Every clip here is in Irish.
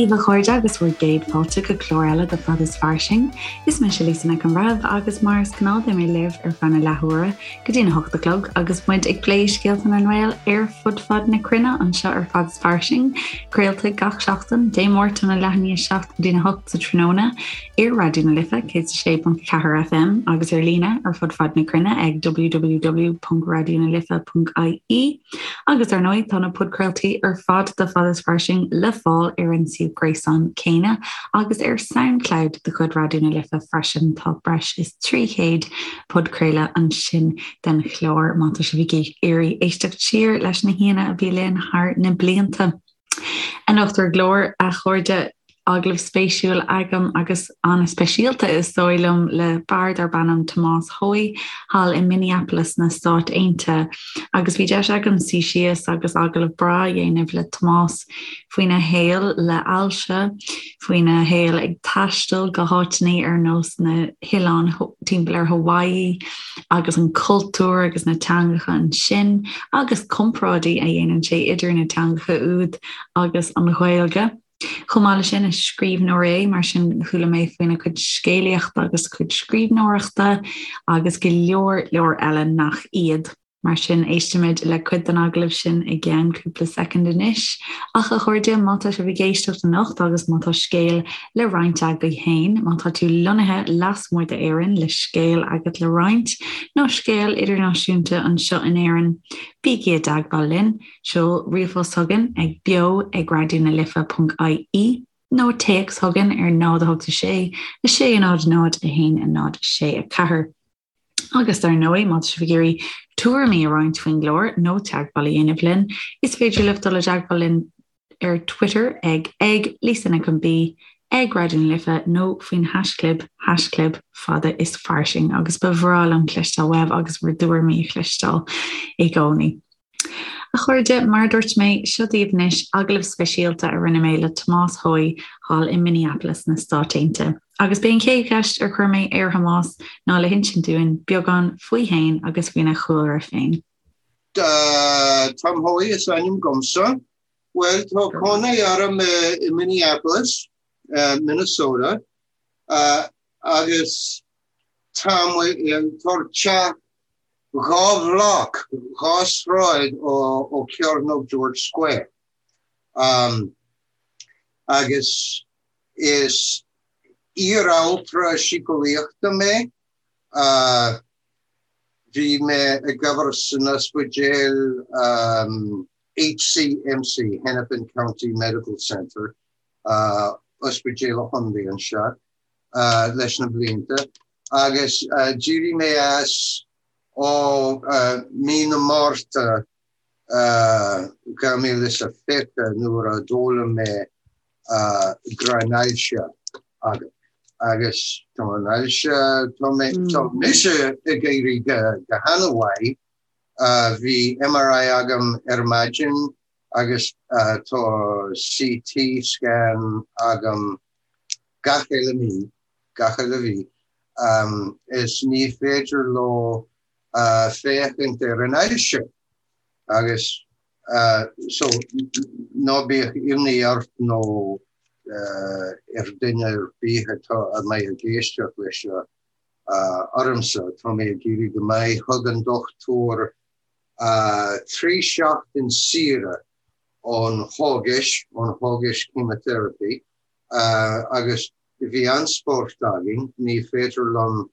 daoibh a chairde agus bhur gcéad fáilte go clár eile de Fad is Fairsing. Is mise Lisa Nic an Bhreithimh agus mar is gnáth beidh mé libh ar feadh na leathuaire go dtí na hocht a chlog agus muid ag plé scéalta na nGael ar fud fad na cruinne anseo ar Fad is Fairsing, craolta gach seachtain, Dé Máirt óna leath i ndiaidh a 7 go dtí na hocht sa tráthnóna ar Raidió na Life 106.4 FM agus ar líne ar fud fad na cruinne ag www.raidionalife.ie. Agus ar ndóigh, tá na podchraoltaí ar fad de Fad is Fairsing le fáil ar an suíomh gréasáin céanna agus ar Soundcloud de chuid Raidió na Life freisin. Tá breis is 300 podchraoladh ansin den chlár má tá sibh ag iarraidh éisteacht siar leis na haíonna a bhí linn thar na blianta. Anocht ar an gclár, a chairde, agallamh spéisiúil agam agus an-speisialta is dóigh liom le fear darb ainm Tomás Hoey thall i Minneapolis sna Stáit Aontaithe agus bhí deis agam suí síos agus agallamh breá a dhéanamh le Tomás faoina shaol le hailse, faoina shaol ag taisteal go háiteanna ar nós na hoileáin timpeall ar Hawaii agus an cultúr agus na teangacha ansin agus comparáidí a dhéanann sé idir na teangacha úd agus an Ghaeilge. Chomh maith leis sin, is scríbhneoir é, mar sin chuala mé faoina chuid scéalaíochta agus a chuid scríbhneoireachta agus go leor leor eile nach iad. Mar sin, éistfimid le cuid den agallamh sin i gceann cúpla soicind anois. Ach, a chairde, má tá sibh ag éisteacht anocht agus má tá scéal le roinnt agaibh féin, má tá tú lonnaithe lasmuigh d'Éirinn le scéal agat le roinnt, nó scéal idirnáisiúnta anseo in Éirinn, bígí i dteagmháil linn. Seol ríomhphost chugainn ag beo ag raidionalife ponc ie nó téacs chugainn ar 0 8 6 6 0 0 1 0 6 4. Agus dar ndóigh, má tá sibh ag iarraidh tuairimí a roinnt faoin gclár nó teagmháil a dhéanamh linn, is féidir libh dul i dteagmháil linn ar Twitter ag ag Lisa Nic an B, ag Raidió na Life nó faoin haischlib, haischlib fada is fairsing agus ba bhreá liom cloisteáil uaibh agus bhur dtuairimí a chloisteáil i gcónaí. A chairde, mar a dúirt mé, seo daoibh anois agallamh speisialta a rinne mé le Tomás Hoey thall i Minneapolis sna Stáit Aontaithe. Agus b'é an chéad cheist ar chuir mé ar Thomás ná le hinsint dúinn beagán faoi fhéin agus faoina chúlra féin. Tom Hoey is ainm dhomsa. Bhuel, tá cónaí orm i Minneapolis, Minnesota, agus tá teach 2 bhloc, 2 sráid ó Cearnóg George Square. Agus is iar-altra síceolaíochta mé. Bhí mé ag obair san ospidéal HCMC, Hennepin County Medical Center, ospidéal an chontae anseo. leis na blianta agus d'éirigh mé as ó mí na Márta 2020 nuair a d'fhoghlaim mé go raibh an ailse agam agus tá an ailse, tá mé, tá mise ag éirí go han-mhaith, bhí MRI agam ar maidin agus tá CT scan agam gach uile mí, gach uile mhí, is ní féidir leo féachaint ar an ailse agus so ná bíodh imní ort nó ar duine ar bith atá a mbeidh ag éisteacht leis seo ormsa, tá mé ag éirí go maith, thug an dochtúir 3 seachtain saoire ón chógais, ón chógais chemotherapy, agus bhí an-spórt againn, ní féidir liom,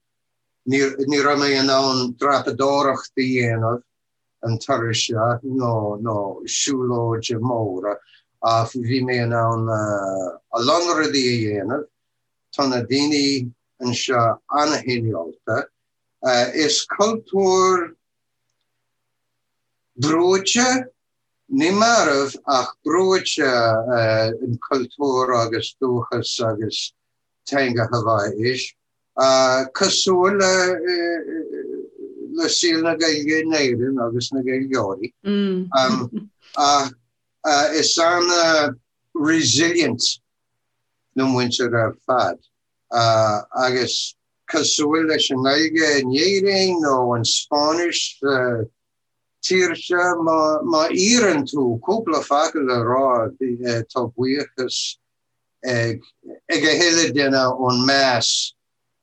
ní, ní raibh mé in ann dreapadóireacht a dhéanamh an turas seo nó, nó siúlóide móra ach bhí mé in ann a lán rudaí a dhéanamh. Tá na daoine anseo an-chineálta. Is cultúr brúite Ní marbh ach brúite an cultúr agus dúchas agus teanga Haváís, cosúil le saol na Gaeilge in Éirinn agus na Gaeilgeoirí. Ach is an-resilient na muintir ar fad agus cosúil leis an nGaeilge in Éirinn nó an Spáinnis sa tír seo, má iarrann tú cúpla focal a rá, tá buíochas ag ag a thuilleadh duine ón meas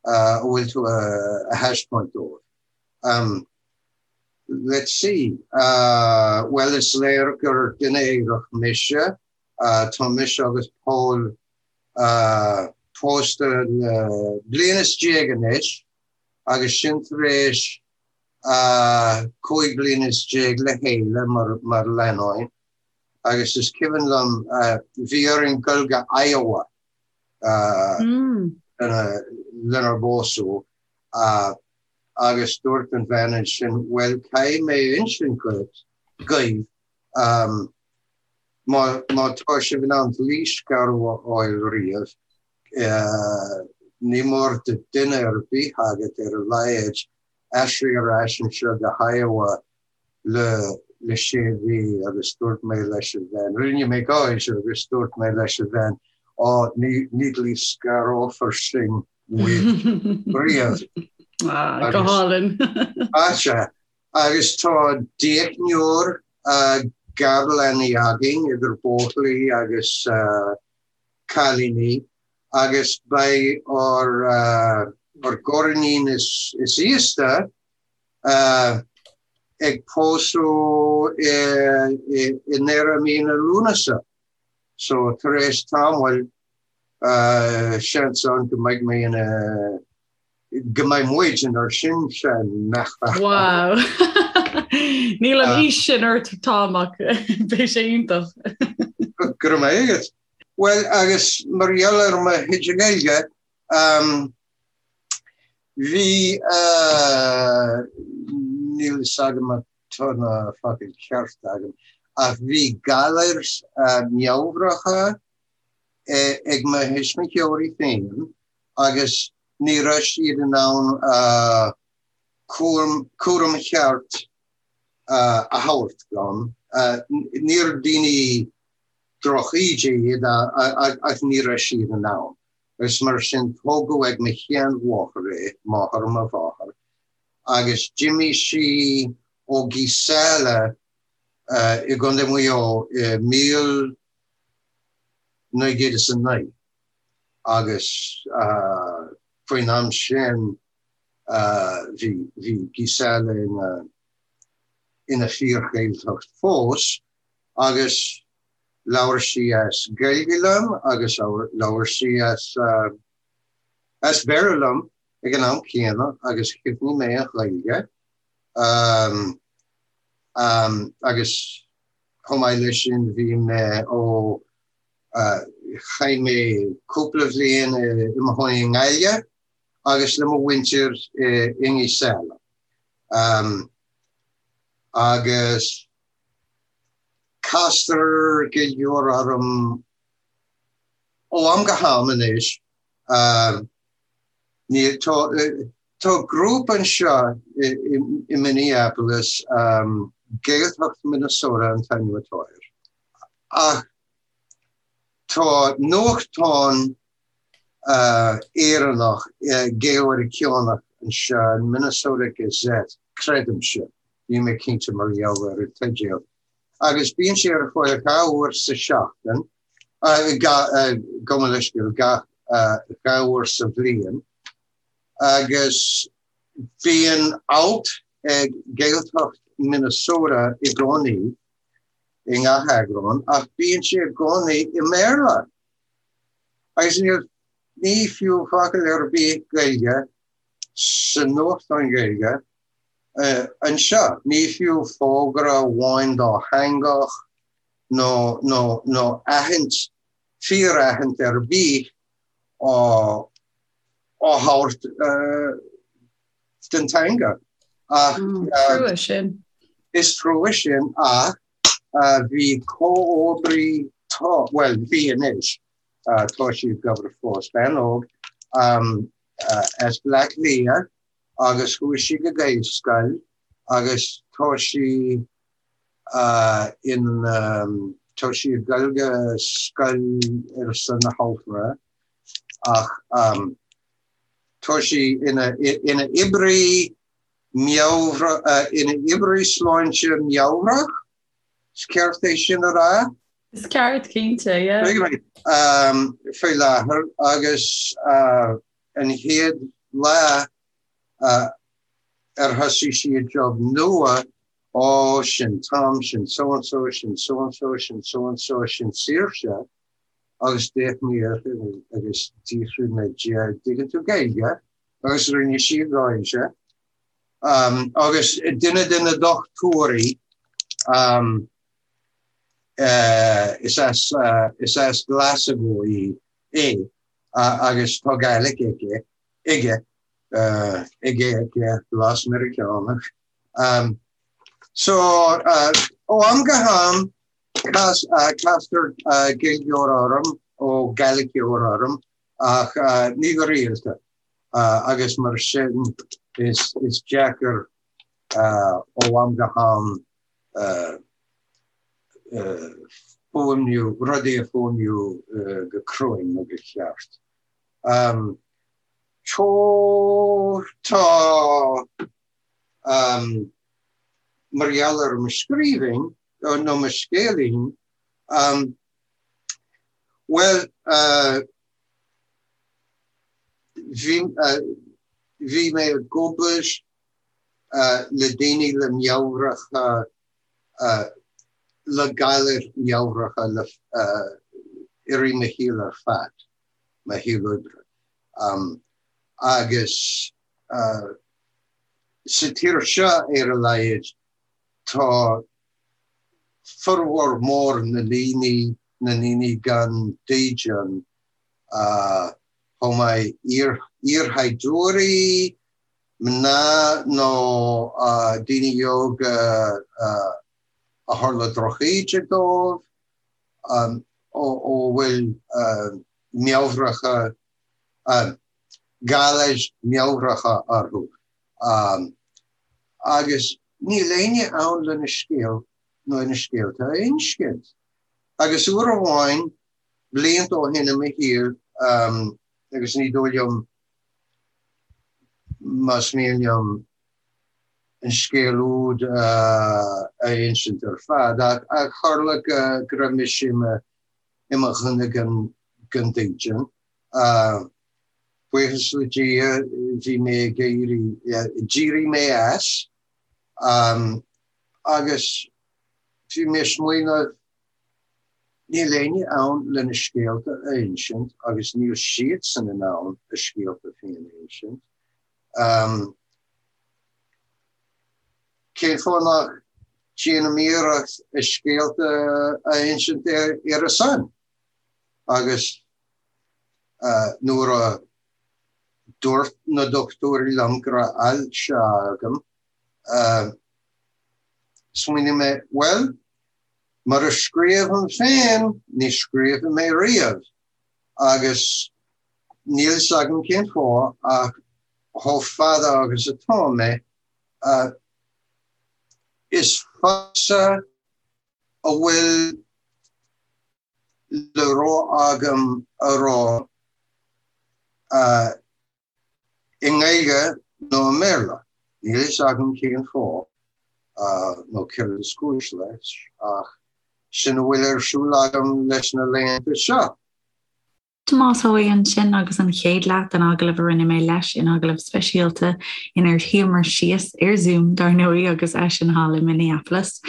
a bhfuil tú a thaispeáint dóibh. Let's see, bhuel is léir gur duine aerach mise, tá mise agus Paul pósta le bliain is déag anois agus sin tar éis 15 bliana le chéile mar lánúin agus is cuimhin liom bhí orainn dul go Iowa lenár bpósadh agus dúirt an bhean ansin bhuel caithfidh mé a insint dhuit, dhaoibh, má má tá sibh in ann dlíscaradh a fháil riamh, ní mór do duine ar bith agat ar a laghad aistriú ar ais anseo go hIowa le le sé mhí agus dúirt mé leis an bhean, rinne mé gáire agus dúirt mé leis an bhean, á ní ní dlíscarófar sinn riamh. Ah, go hálainn. Sea, agus tá deichniúr garleanaí againn idir buachaillí agus cailíní agus beidh ár ár gariníon is is aosta ag pósadh i i ndeireadh mí na Lúnasa. So tar éis tamaill seans ann go mbeidh mé ina go mbeidh muid inár sinseanmháthair. Wow! Níl an aois sin ort Tom ach beidh sé iontach. Go raibh maith agat. Bhuel agus mar gheall ar mo chuid Gaeilge, bhí, níl fhios agam má tá na focail ceart agam, ach bhí galair meabhracha ag mo thuismitheoirí féin agus ní raibh siad in ann cúram cheart a thabhairt dom. Níor daoine drochíde iad ach ní raibh siad in ann. Agus mar sin tógadh ag mo sheanmháthair é, máthair mo mháthar, agus d'imigh sí ó Geesala i gContae Mhaigh Eo i 1909 agus faoin am sin bhí bhí Geesala ina ina fíor-Ghaeltacht fós agus labhair sí as Gaeilge liom agus labhair sí as as Béarla liom ag an am céanna agus chuimhnigh mé an Ghaeilge agus chomh maith leis sin bhí mé ó chaith mé cúpla bhliain i mo chónaí i nGaillimh agus le mo mhuintir i nGeesala. Agus castar Gaeilgeoir orm ó am go ham anois. Ní tá tá grúpa anseo i Minneapolis, Gaeltacht Minnesota an t-ainm atá air. Ach tá nuachtán Éireannach, Gael-Mheiriceánach anseo, an Minnesota Gazette, creidimse, níl mé cinnte mar gheall ar an teideal, agus bíonn sé ar fáil dhá uair sa seachtain, gabh mo leithscéal, dhá uair sa bhliain, agus bíonn alt ag Gaeltacht Minnesota i gcónaí i ngach eagrán, ach bíonn sé i gcónaí i mBéarla. Agus níl, ní fiú focal ar bith Gaeilge sa nuachtán Gaeilge anseo. Ní fiú fógra amháin dátheangach nó, nó, nó aithint, fíor-aithint ar bith á, á thabhairt den teanga. Ach, Trua sin. Is trua sin ach bhí comhoibrí, tá, bhuel, bhí anois, tá sí ag obair fós, bean óg as Bleá Cliath agus chuaigh sí go Gaelscoil agus tá sí in, tá sí ag dul go scoil ar son na haltra ach tá sí ina, ina oibrí meabhra, ina oibrí sláinte meabhrach, is ceart é sin a rá? Is ceart, cinnte, yeah. Faoi láthair agus an chéad lá ar thosaigh sí a job nua, ó, sin Tom, sin so and so, sin so and so, sin so and so, sin Saoirse, agus d'fhéach mé uirthi agus d'fhiafraigh mé di, dtuigeann tú Gaeilge? Agus rinne sí gáire. Agus duine de na dochtúirí, is as is as Glasgow í é agus tá Gaelic aici, aige, aige, aici, blas Meiriceánach. So, ó am go ham, castar Gaeilgeoir orm, ó Gaeliceoir orm, ach ní go rialta, agus mar sin is deacair ó am go ham fuaimniú, rudaí a fuaimniú go cruinn nó go ceart. Tá, mar gheall ar mo scríbhinn, nó mo scéilín, bhuel, bhí, bhí mé ag obair le daoine le meabhracha, le galair meabhracha le i rith mo shaoil ar fad, mo shaol oibre. Agus sa tír seo, ar a laghad, tá formhór mór na ndaoine, na ndaoine gan dídean, chomh maith iarshaighdiúirí, mná nó daoine óga a tharla drochíde dóibh, a bhfuil meabhracha, galair meabhracha orthu. Agus níl éinne ann lena scéal nó na scéalta a insint. Agus uair amháin, blianta ó shin i mo shaol, agus ní dóigh liom más mian liom an scéal úd a insint ar fad, ach tharla go raibh mise i mo dhuine gan dídean. Buíochas le Dia, bhí mé ag éirí, d'éirigh mé as agus bhí mé ag smaoineamh, Níl éinne ann lena scéalta a insint agus níl siadsan in ann a scéalta féin a insint. Cén fáth nach ndéanaim iarracht a scéalta a insint ar a son? Agus nuair a dúirt na dochtúirí liom go raibh ailse agam, smaoinigh mé, bhuel, Mura scríobhaim féin, ní scríobfaidh mé riamh, agus níl fhios agam cén fáth ach chomh fada agus atá mé, is fusa a bhfuil le rá agam a rá. I nGaeilge nó i mBéarla, níl fhios agam cén fáth nó céard is cúis leis, ach sin a bhfuil ar siúl agam leis na laethanta seo. Tomás Seoighe ansin agus an chéad leath den agallamh a rinne mé leis in agallamh speisialta inar shuíomar síos ar Zoom dar ndóigh agus eisean thall i Minneapolis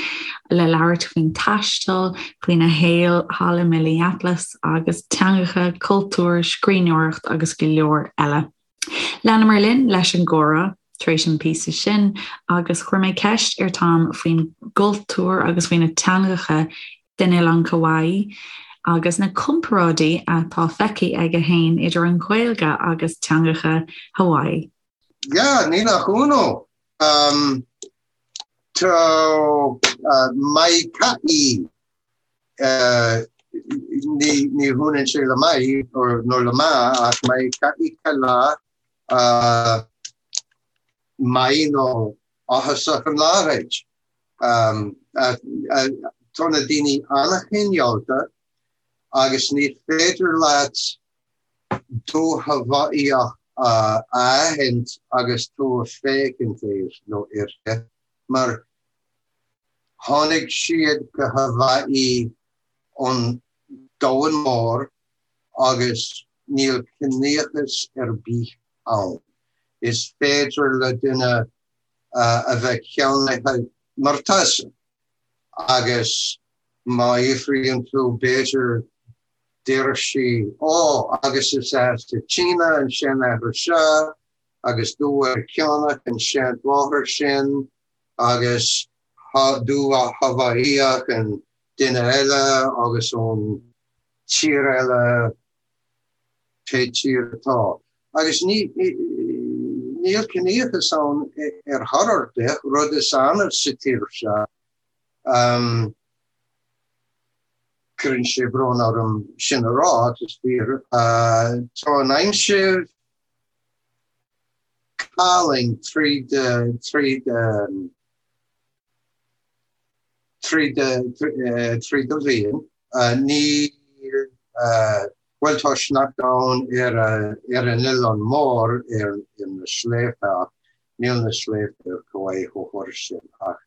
le labhairt faoin taisteal, faoina shaol thall i Minneapolis agus teangacha, cultúr, scríbhneoireacht agus go leor eile. Leanamar linn leis an gcomhrá tar éis an píosa sin agus chuir mé ceist ar Tom faoin gcultúr agus faoi na teangacha den oileán Kauai agus na comparáidí atá feicthe aige féin idir an Ghaeilge agus teangacha Hawaii. Yeah, ní nach ionadh. Um, tá uh, maika'i Ní hionann sé le maith nó le maith ach maika'i ka lā maith nó áthasach an lá dhuit. Tá na daoine an-chineálta agus ní féidir leat do Haváíoch a aithint agus tú ag féachaint air nó uirthi mar Tháinig siad go Haváí An domhan mór agus níl ciníochas ar bith ann. Is féidir le duine a bheith ceannaithe mar tusa agus má fhiafraíonn tú b'fhéidir déarfaidh sí 'Ó agus is as an tSíne an seanathair seo agus Dubh-Mheiriceánach an seanmháthair sin agus Dubh-Haváíoch an duine eile agus ón tír eile pé tír atá. Agus níl ciníochas ann ar chor ar bith, rud is annamh sa tír seo. Cuireann sé brón orm sin a rá, ach is fíor. Tá an aimsir álainn tríd tríd tríd tríd an bhliain. Ní bhuel tá sneachta ann ar ar an oileán mór ar na sléibhte ach níl na sléibhte ar Kauai chomh hard sin ach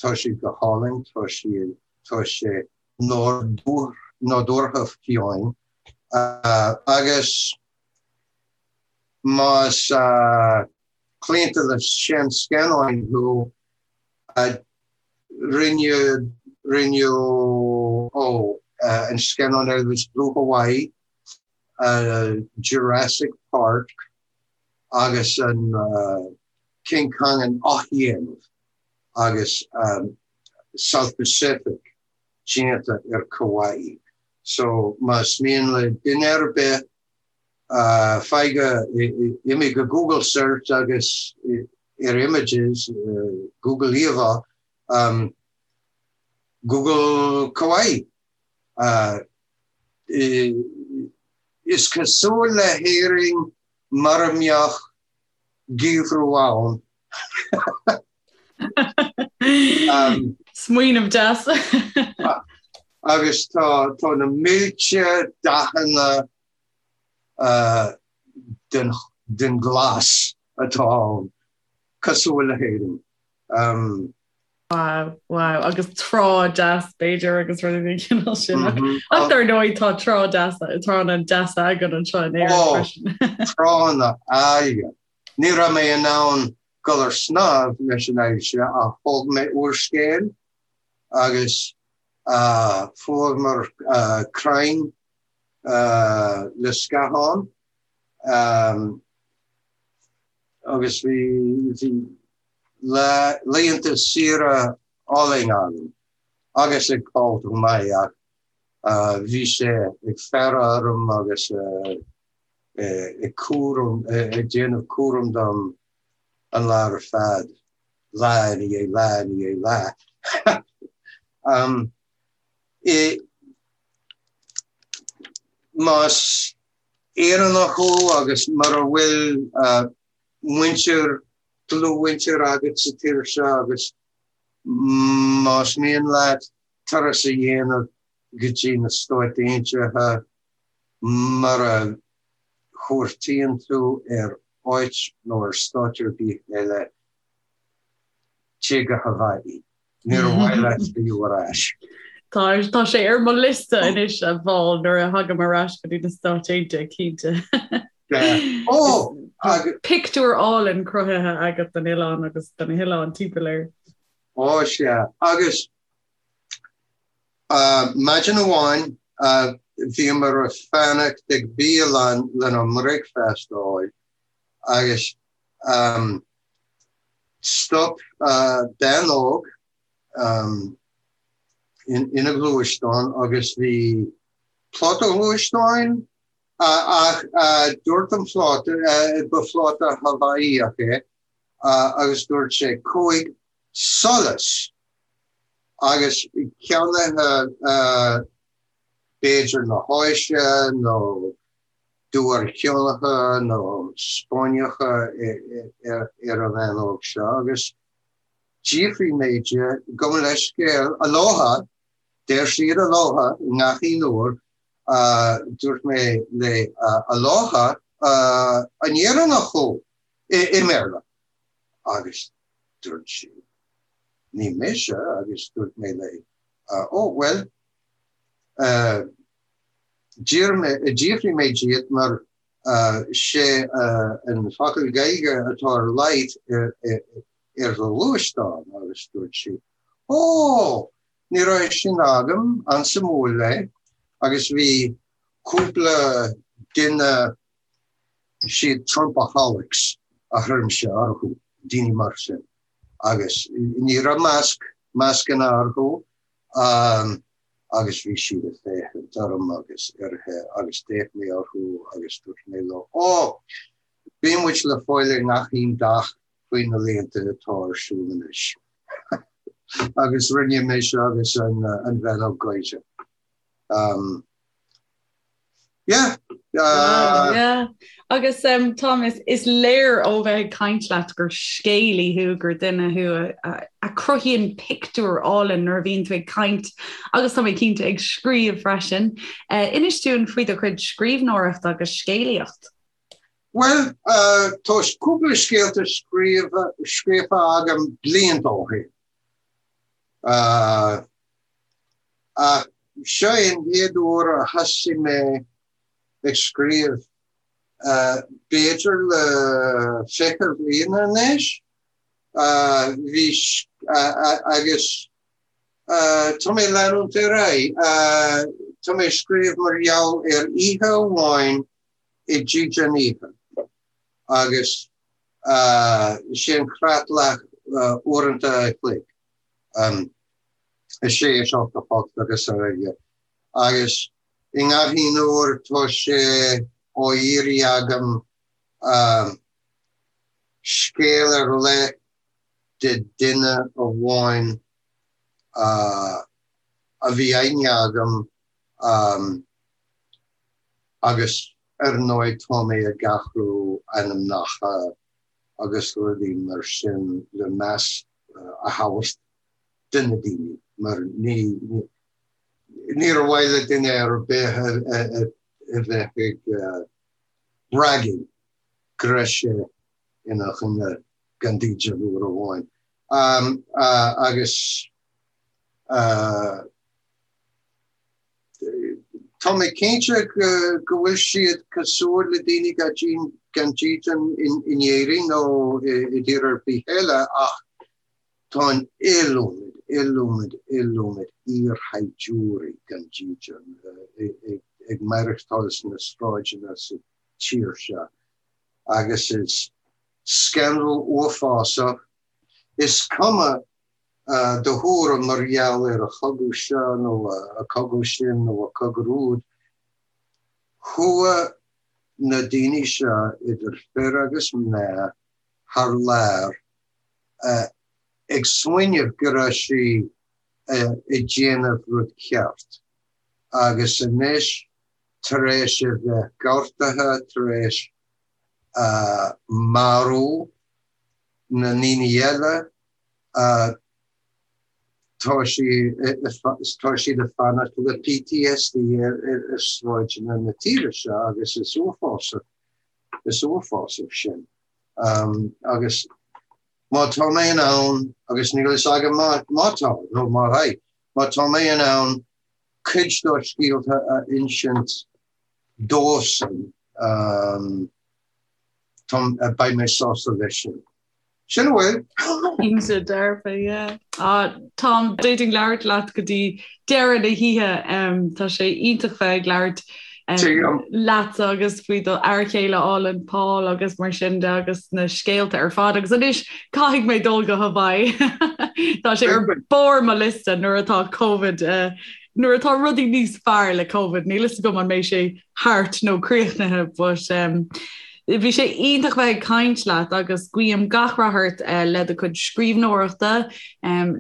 tá siad go hálainn, tá siad tá sé nádúrtha fiáin agus más claonta le seanscannáin thú, rinneadh, rinneadh, ó, an scannán Elvis Blue Hawaii, Jurassic Park agus an King Kong an athdhéanamh agus South Pacific déanta ar Kauai. So más mian le duine ar bith Faigh go, imigh go Google search agus ar images, Google íomhá, Google Kauai. Is cosúil le hÉirinn mura mbeadh geimhreadh ann. Smaoineamh deas. Agus tá tá na mílte dathanna den den ghlas atá ann, cosúil le hÉirinn. Wow, wow, agus trá deas b'fhéidir agus rudaí den chineál sin. Ach dar ndóigh tá trá deas, tránna deasa againn anseo in Éirinn freisin. Tránna áille. Ní raibh mé in ann dul ar snámh leis an ailse ach thóg mé úrscéal agus fuaireamar crainn le scáthán agus bhí laethanta saoire álainn agam agus ag Paul chomh maith ach bhí sé ag faire orm agus ag cúram, ag déanamh cúram dom an lá ar fad, lá i ndiaidh lá i ndiaidh lá. Más Éireannach thú agus mura bhfuil muintir, dlúthmhuintir agat sa tír seo agus más mian leat turas a dhéanamh go dtí na Stáit Aontaithe, Mura chuartaíonn tú ar áit nó ar stát ar bith eile, téigh go Haváí. Níor mhaith leat filleadh ar ais. Tá, tá sé ar mo liosta anois a Phaul nuair a thagaim ar ais go dtí na Stáit Aontaithe, cinnte. Ó! Pictiúr álainn cruthaithe agat den oileán agus de na hoileáin timpeall air. Ó, sea. Agus Maidin amháin bhíomar ag fanacht ag bialann lenár mbricfeasta a fháil agus stop bean óg ina gluaisteán agus bhí pláta gluaisteáin ach dúirt an pláta, ba phláta Haváíoch é, agus dúirt sé cúig solas agus ceannaithe b'fhéidir na hÁise nó Dubh-Mheiriceánacha nó Spáinneacha ar an bhean óg seo agus d'fhiafraigh mé di, gabh mo leithscéal, aloha, deir siad aloha i ngach aon uair, dúirt mé léi aloha, an Éireannach thú? i mBéarla agus dúirt sí ní mise agus dúirt mé léi ó bhuel. D'fhiafraigh mé díot mar sé an focal Gaeilge atá ar leight ar do ghluaisteán agus dúirt sí, Ó! Ní raibh sin agam, an-suimiúil é agus bhí cúpla duine, siad Trumpaholics a chuirimse orthu, daoine mar sin agus ní raibh masc, mascanna orthu agus bhí siad ag féachaint orm agus uirthi agus d'fhéach mé orthu agus dúirt mé leo, Ó! Bíonn muid le fáil i ngach aon dath faoi na laethanta atá ar siúl anois. Agus rinne mise agus an bhean óg gáire. Yeah. Yeah. Agus um, Tom, is, is léir ó bheith ag caint leat gur scéalaí thú, gur duine thú a, a, a chruthaíonn pictiúr álainn nuair a bhíonn tú ag caint agus tá mé cinnte ag scríobh freisin. Uh, inis dúinn faoi do chuid scríbhneoireachta agus scéalaíocht. Bhuel, tá cúpla scéalta scríofa agam blianta ó shin. Ach seo é an chéad uair a thosaigh mé ag scríobh, b'fhéidir le 20 bliain anois. Bhí, agus tá mé ag leanúint ar aghaidh. Tá mé ag scríobh mar gheall ar oíche amháin i dídean oíche agus sé an chreatlach uaireanta a chloig, 6, 7, 8 agus araile agus i ngach aon uair tá sé á iarraidh agam scéal ar leith de duine amháin a bhí aithne agam Agus ar ndóigh tá mé ag athrú ainmneacha agus rudaí mar sin le meas a thabhairt do na daoine mar ní níor mhaith le duine ar bith a bheith ag bragging go raibh sé ina dhuine gan dídean uair amháin. Agus. Tá mé cinnte go bhfuil siad cosúil le daoine gan dídean in Éirinn nó i dtír ar bith eile ach tá an iliomad, iliomad, iliomad iarshaighdiúirí gan dídean ag maireachtáil sna sráideanna sa tír seo agus is scannal uafásach. Is cuma do thuairim mar gheall ar an chogadh seo nó an cogadh sin nó an cogadh úd, chuaigh na daoine seo, idir fir agus mná, thar lear ag smaoineamh go raibh siad ag déanamh rud ceart agus anois tar éis a bheith gortaithe, tar éis marú na ndaoine eile, Tá tá siad ag fanacht le PTSD ar sráideanna na tíre seo agus is uafásach, is uafásach sin. Agus má tá mé in ann, agus níl fhios agam má tá nó má bheidh, má tá mé in ann cuid dá scéalta a insint dóibhsean, beidh mé sásta leis sin. Sin a bhfuil. Cinnte dearfa, yeah. Ah, Tom, d'fhéadfainn labhairt leat go dtí deireadh na hoíche. Tá sé iontach bheith ag labhairt leatsa agus faoi do fhear chéile álainn Paul agus mar sin de agus na scéalta ar fad. Agus anois caithfidh mé dul go Hawaii. Tá sé ar barr mo liosta nuair atá Covid eh, nuair atá rudaí níos fearr le Covid. Níl fhios agam an mbeidh sé thart nó críochnaithe but um, Bhí sé iontach bheith ag caint leat agus guím gach rath ort le do chuid scríbhneoireachta,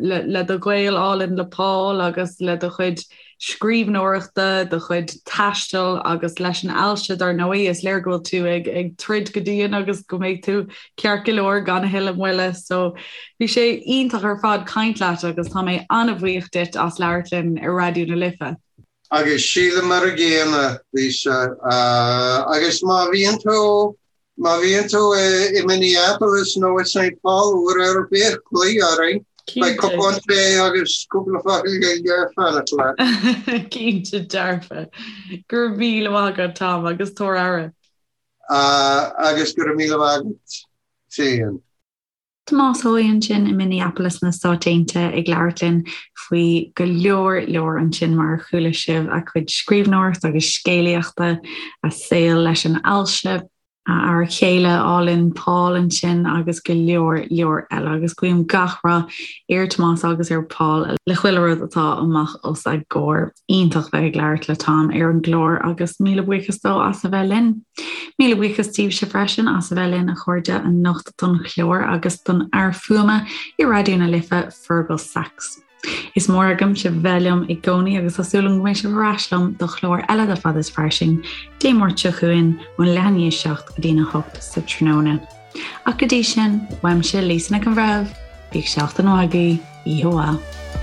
le do ghaol álainn le Paul agus le do chuid scríbhneoireachta, do chuid taistil agus leis an ailse dar ndóigh. Is léir go bhfuil tú ag ag troid go dian agus go mbeidh tú ceart go leor gan a thuilleadh moille. So bhí sé iontach ar fad caint leat agus tá mé an-bhuíoch duit as labhairt linn ar Raidió na Life. Agus sílim mar a gcéanna, Lisa. Agus má bhíonn tú, má bhíonn tú i Minneapolis nó i Saint Paul uair ar bith, glaoigh orainn. Beidh cupán tae agus cúpla focal Gaeilge ag fanacht leat. Cinnte dearfa. Go raibh míle maith agat Tom agus tabhair aire. Agus go raibh míle maith agat féin. Tomás Seoighe ansin i Minneapolis na Stáit Aontaithe ag labhairt linn faoi go leor leor ansin mar a chuala sibh, a chuid scríbhneoireachta agus scéalaíochta, a saol leis an ailse, a fhear céile álainn Paul ansin agus go leor leor eile agus guím gach rath ar Tomás agus ar Paul le chuile rud atá amach os a gcomhair. Iontach bheith ag labhairt le Tom ar an gclár agus míle buíochas dó as a bheith linn. Míle buíochas daoibhse freisin as a bheith linn a chairde anocht don chlár agus don fhear fuaime i Raidió na Life, Fergal Sachs. Is mór agam sibh bheith liom i gcónaí agus tá súil agam go mbeidh sibh ar ais liom do chlár eile de Fada is Fairsing Dé Máirt seo chugainn ón leath i ndiaidh a 7 go dtí'n 8 sa tráthnóna. Ach go dtí sin, uaimse Lisa Nic an Bhreithimh, bíodh seachtain mhaith agaibh, oíche mhaith.